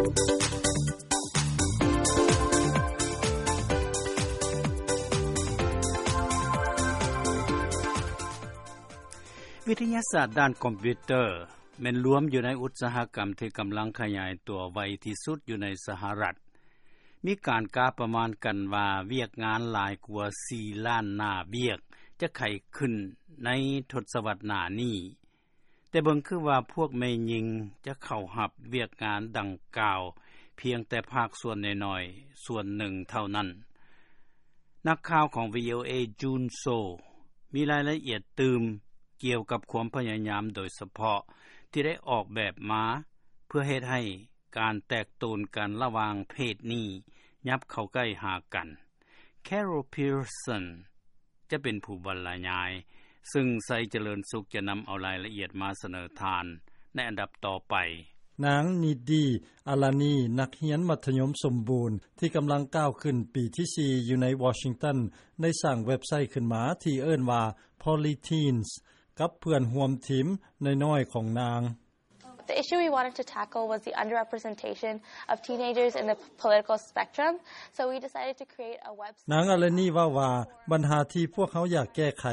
ວິທະຍາສາດດ້ານຄອມພິວເຕີ ແມ່ນລວມຢູ່ໃນອຸດສາຫະກຳທີ່ກຳລັງຂະຫຍາຍຕົວໄວທີ່ສຸດຢູ່ໃນສະຫະລັດ. ມີການກະປະມານກັນວ່າ ວຽກງານຫຼາຍກວ່າສີ່ລ້ານໜ້າວຽກຈະໄຂຂຶ້ນໃນທົດສະວັດໜ້ານີ້, ແຕ່ເບິ່ງຄືວ່າພວກແມ່ຍິງຈະເຂົ້າຮັບວຽກງານດັ່ງກ່າວພຽງແຕ່ພາກສ່ວນນ້ອຍໆສ່ວນໜຶ່ງເທົ່ານັ້ນ. ນັກຂ່າວຂອງ ວີ ໂອ ເອ Jun Seo ມີລາຍລະອຽດຕື່ມກ່ຽວກັບຄວາມພະຍາຍາມໂດຍສະເພາະທີ່ໄດ້ອອກແບບມາເພື່ອເຮັດໃຫ້ການແຕກໂຕນກັນລະຫວ່າງເພດນີ້ຫຍັບເຂົ້າໃກ້ຫາກັນ. Carol Pearson ຈະເປັນຜູ້ບັນລະຍາຍ, ຊຶ່ງໄຊຈະເລີນສຸກຈະນຳເອົາລາຍລະອຽດມາສະເໜີທ່ານໃນອັນດັບຕໍ່ໄປ. ນາງ ນິດດີ ອາລານີ ນັກຮຽນມັດທະຍົມສົມບູນທີ່ກຳລັງກ້າວຂຶ້ນປີທີສີ່ຢູ່ໃນວໍຊິງຕັນ ໄດ້ສ້າງເວັບໄຊຂຶ້ນມາທີ່ເອີ້ນວ່າ Polyteens ກັບເພື່ອນຮ່ວມທີມນ້ອຍໆຂອງນາງ. The issue we wanted to tackle was the underrepresentation of teenagers in the political spectrum, so we decided to create a website. ນາງອາລານີເວົ້າວ່າ ບັນຫາທີ່ພວກເຮົາຢາກແກ້ໄຂ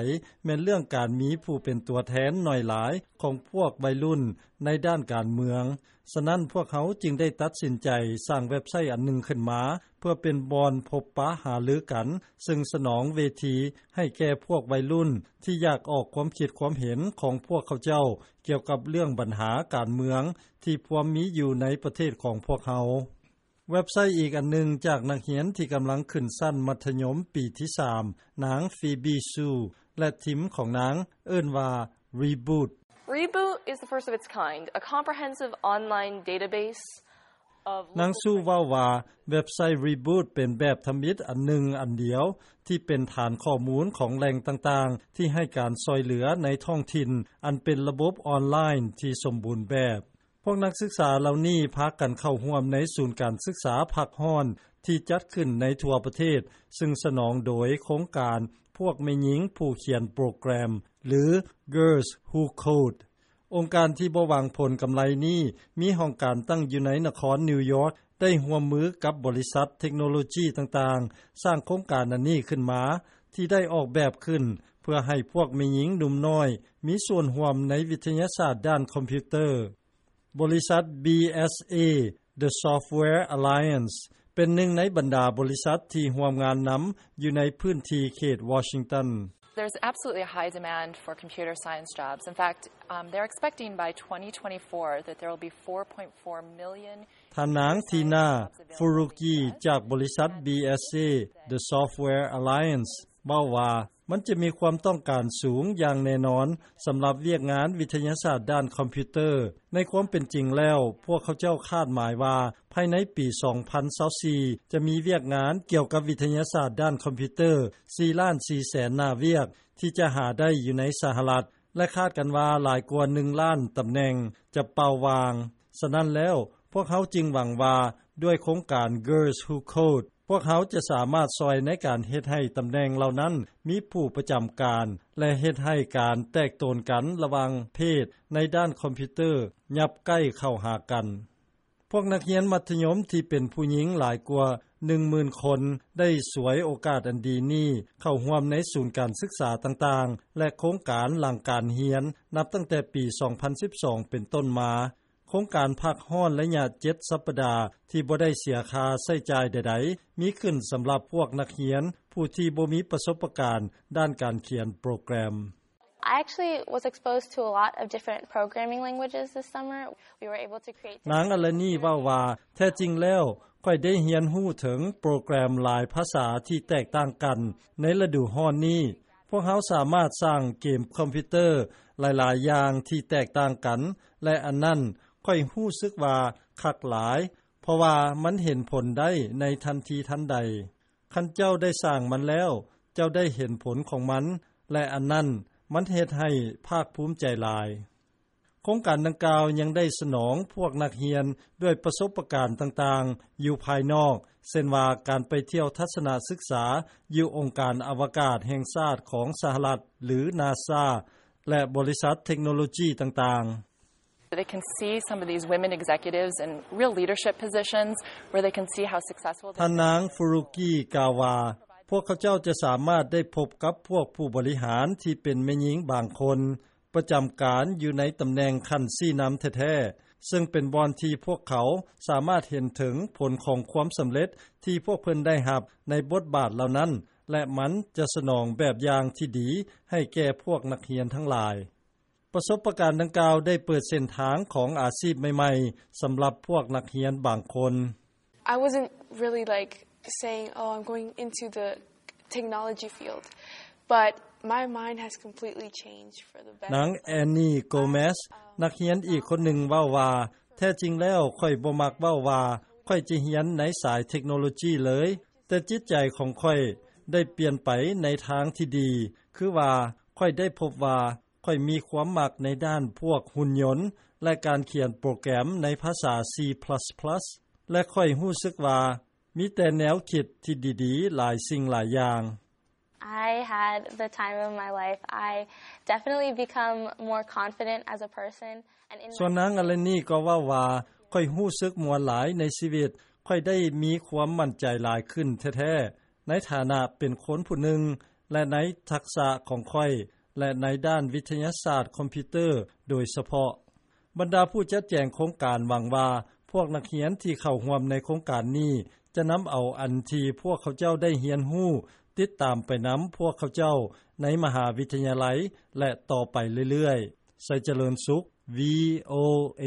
ແມ່ນເລື່ອງການມີຜູ້ເປັນຕົວແທນໜ້ອຍຫຼາຍຂອງພວກໄວລຸ້ນໃນດ້ານການເມືອງ. ສະນັ້ນ, ພວກເຮົາຈຶ່ງໄດ້ຕັດສິນໃຈສ້າງເວັບໄຊອັນໜຶ່ງຂຶ້ນມາ ເພື່ອເປັນບ່ອນພົບປະຫາລືກັນ, ຊຶ່ງສະໜອງເວທີໃຫ້ແກ່ພວກໄວລຸ້ນທີ່ຢາກອອກຄວາມຄິດຄວາມເຫັນຂອງພວກເຂົາເຈົ້າ ກ່ຽວກັບເລື່ອງບັນຫາການເມືອງທີ່ພວມມີຢູ່ໃນປະເທດຂອງພວກເຮົາ. ເວັບໄຊອີກອັນໜຶ່ງຈາກນັກຮຽນທີ່ກຳລັງຂຶ້ນຊັ້ນມັດທະຍົມປີທີສາມ, ນາງ ຟີບີ ຊູ ແລະ ທີມຂອງນາງເອີ້ນວ່າ Reboot. Reboot is the first of its kind, a comprehensive online database of ນາງ ຊູ ເວົ້າວ່າ ເວັບໄຊ Reboot ເປັນແບບທຳອິດອັນໜຶ່ງອັນດຽວ ທີ່ເປັນຖານຂໍ້ມູນຂອງແຫຼ່ງຕ່າງໆ ທີ່ໃຫ້ການຊ່ອຍເຫຼືອໃນທ້ອງຖິ່ນ ອັນເປັນລະບົບອອນລາຍນ໌ທີ່ສົມບູນແບບ. ພວກນັກສຶກສາເຫຼົ່ານີ້ພາກັນເຂົ້າຮ່ວມໃນສູນການສຶກສາພັກຮ້ອນທີ່ຈັດຂຶ້ນໃນທົ່ວປະເທດ, ຊຶ່ງສະໜອງໂດຍໂຄງການພວກແມ່ຍິງຜູ້ຂຽນໂປຣແກຣມ ຫຼື Girls Who Code. ອົງການທີ່ບໍ່ຫວັງຜົນກຳໄລນີ້ ມີຫ້ອງການຕັ້ງຢູ່ໃນນະຄອນນິວຢອກ, ໄດ້ຮ່ວມມືກັບບໍລິສັດເທັກໂນໂລຈີຕ່າງໆ ສ້າງໂຄງການອັນນີ້ຂຶ້ນມາ, ທີ່ໄດ້ອອກແບບຂຶ້ນເພື່ອໃຫ້ພວກແມ່ຍິງໜຸ່ມນ້ອຍມີສ່ວນຮ່ວມໃນວິທະຍາສາດດ້ານຄອມພິວເຕີ. ບໍລິສັດ ບີເອສເອ The Software Alliance ເປັນໜຶ່ງໃນບັນດາບໍລິສັດທີ່ຮ່ວມງານນຳຢູ່ໃນພື້ນທີ່ເຂດວໍຊິງຕັນ. There's absolutely a high demand for computer science jobs. In fact, um, they're expecting by twenty twenty-four that there will be four point four million ທ່ານນາງ ທີນາ ຟູຣູກີ ຈາກບໍລິສັດ ບີເອສເອ The Software Alliance ເວົ້າວ່າ ມັນຈະມີຄວາມຕ້ອງການສູງຢ່າງແນ່ນອນສຳລັບວຽກງານວິທະຍາສາດດ້ານຄອມພິວເຕີ. ໃນຄວາມເປັນຈິງແລ້ວ, ພວກເຂົາເຈົ້າຄາດໝາຍວ່າ ພາຍໃນປີສອງພັນຊາວສີ່ ຈະມີວຽກງານກ່ຽວກັບວິທະຍາສາດດ້ານຄອມພິວເຕີ ສີ່ລ້ານສີ່ແສນໜ້າວຽກ ທີ່ຈະຫາໄດ້ຢູ່ໃນສະຫະລັດ ແລະ ຄາດກັນວ່າຫຼາຍກວ່າໜຶ່ງລ້ານຕຳແໜ່ງຈະເປົ່າວ່າງ. ສະນັ້ນແລ້ວ, ພວກເຮົາຈຶ່ງຫວັງວ່າ ດ້ວຍໂຄງການ Girls Who Code ພວກເຮົາຈະສາມາດຊ່ອຍໃນການເຮັດໃຫ້ຕຳແໜ່ງເຫຼົ່ານັ້ນມີຜູ້ປະຈຳການ ແລະ ເຮັດໃຫ້ການແຕກໂຕນກັນລະຫວ່າງເພດໃນດ້ານຄອມພິວເຕີຫຍັບໃກ້ເຂົ້າຫາກັນ. ພວກນັກຮຽນມັດທະຍົມທີ່ເປັນຜູ້ຍິງຫຼາຍກວ່າໜຶ່ງໝື່ນຄົນ ໄດ້ສວຍໂອກາດອັນດີນີ້ເຂົ້າຮ່ວມໃນສູນການສຶກສາຕ່າງໆ ແລະ ໂຄງການຫຼັງການຮຽນ ນັບຕັ້ງແຕ່ປີສອງພັນສິບສອງເປັນຕົ້ນມາ. ໂຄງການພັກຮ້ອນໄລຍະເຈັດສັບປະດາທີ່ບໍ່ໄດ້ເສຍຄ່າໃຊ້ຈ່າຍໃດໆ ມີຂຶ້ນສຳລັບພວກນັກຮຽນຜູ້ທີ່ບໍ່ມີປະສົບປະການດ້ານການຂຽນໂປຣແກຣມ. I actually was exposed to a lot of different programming languages this summer. We were able to create ນາງອາລານີເວົ້າວ່າ ແທ້ຈິງແລ້ວ ຂ້ອຍໄດ້ຮຽນຮູ້ເຖິງໂປຣແກຣມຫຼາຍພາສາທີ່ແຕກຕ່າງກັນໃນລະດູຮ້ອນນີ້. ພວກເຮົາສາມາດສ້າງເກມຄອມພິວເຕີຫຼາຍໆຢ່າງທີ່ແຕກຕ່າງກັນ ແລະ ອັນນັ້ນຂ້ອຍຮູ້ສຶກວ່າຄັກຫຼາຍ ເພາະວ່າມັນເຫັນຜົນໄດ້ໃນທັນທີທັນໃດ. ຄັນເຈົ້າໄດ້ສ້າງມັນແລ້ວ, ເຈົ້າໄດ້ເຫັນຜົນຂອງມັນ ແລະ ອັນນັ້ນມັນເຮັດໃຫ້ພາກພູມໃຈຫຼາຍ. ໂຄງການດັ່ງກ່າວຍັງໄດ້ສະໜອງພວກນັກຮຽນດ້ວຍປະສົບປະການຕ່າງໆຢູ່ພາຍນອກ, ເຊັ່ນວ່າການໄປທ່ຽວທັດສະນະສຶກສາຢູ່ອົງການອະວະກາດແຫ່ງຊາດຂອງສະຫະລັດ ຫຼື ນາຊາ ແລະ ບໍລິສັດເທັກໂນໂລຈີຕ່າງໆ. They can see some of these women executives in real leadership positions where they can see how successful they've been. ທ່ານນາງ Furuki ກ່າວວ່າ ພວກເຂົາເຈົ້າຈະສາມາດໄດ້ພົບກັບພວກຜູ້ບໍລິຫານທີ່ເປັນແມ່ຍິງບາງຄົນ ປະຈຳການຢູ່ໃນຕຳແໜ່ງຂັ້ນຊີ້ນຳແທ້ໆ ເຊິ່ງເປັນບ່ອນທີ່ພວກເຂົາສາມາດເຫັນເຖິງຜົນຂອງຄວາມສຳເລັດທີ່ພວກເພິ່ນໄດ້ຮັບໃນບົດບາດເຫຼົ່ານັ້ນ ແລະ ມັນຈະສະໜອງແບບຢ່າງທີ່ດີໃຫ້ແກ່ພວກນັກຮຽນທັງຫຼາຍ. ປະສົບປະການດັ່ງກ່າວໄດ້ເປີດເສັ້ນທາງຂອງອາຊີບໃໝ່ໆ ສຳລັບພວກນັກຮຽນບາງຄົນ. I wasn't really, like, saying, "Oh, I'm going into the technology field," but my mind has completely changed for the better. ນາງ Annie Gomez ນັກຮຽນອີກຄົນໜຶ່ງເວົ້າວ່າ ແທ້ຈິງແລ້ວຂ້ອຍບໍ່ມັກເວົ້າວ່າຂ້ອຍຈະຮຽນໃນສາຍເທັກໂນໂລຈີເລີຍ, ແຕ່ຈິດໃຈຂອງຂ້ອຍໄດ້ປ່ຽນໄປໃນທາງທີ່ດີ, ຄືວ່າຂ້ອຍໄດ້ພົບວ່າ ຂ້ອຍມີຄວາມມັກໃນດ້ານພວກຫຸ່ນຍົນ ແລະ ການຂຽນໂປຣແກຣມໃນພາສາ C plus plus ແລະ ຂ້ອຍຮູ້ສຶກວ່າມີແຕ່ແນວຄິດທີ່ດີໆຫຼາຍສິ່ງຫຼາຍຢ່າງ. I had the time of my life. I definitely become more confident as a person and in ສ່ວນນາງ Eleni ກໍເວົ້າວ່າ ຂ້ອຍຮູ້ສຶກມ່ວນຫຼາຍໃນຊີວິດ, ຂ້ອຍໄດ້ມີຄວາມໝັ້ນໃຈຫຼາຍຂຶ້ນແທ້ໆ ໃນຖານະເປັນຄົນຜູ້ໜຶ່ງ ແລະ ໃນທັກສະຂອງຂ້ອຍ ແລະ ໃນດ້ານວິທະຍາສາດຄອມພິວເຕີໂດຍສະເພາະ. ບັນດາຜູ້ຈັດແຈງໂຄງການຫວັງວ່າ ພວກນັກຮຽນທີ່ເຂົ້າຮ່ວມໃນໂຄງການນີ້ ຈະນຳເອົາອັນທີ່ພວກເຂົາເຈົ້າໄດ້ຮຽນຮູ້ ຕິດຕາມໄປນຳພວກເຂົາເຈົ້າໃນມະຫາວິທະຍາໄລ ແລະ ຕໍ່ໄປເລື້ອຍໆ. ໄຊຈະເລີນສຸກ VOA.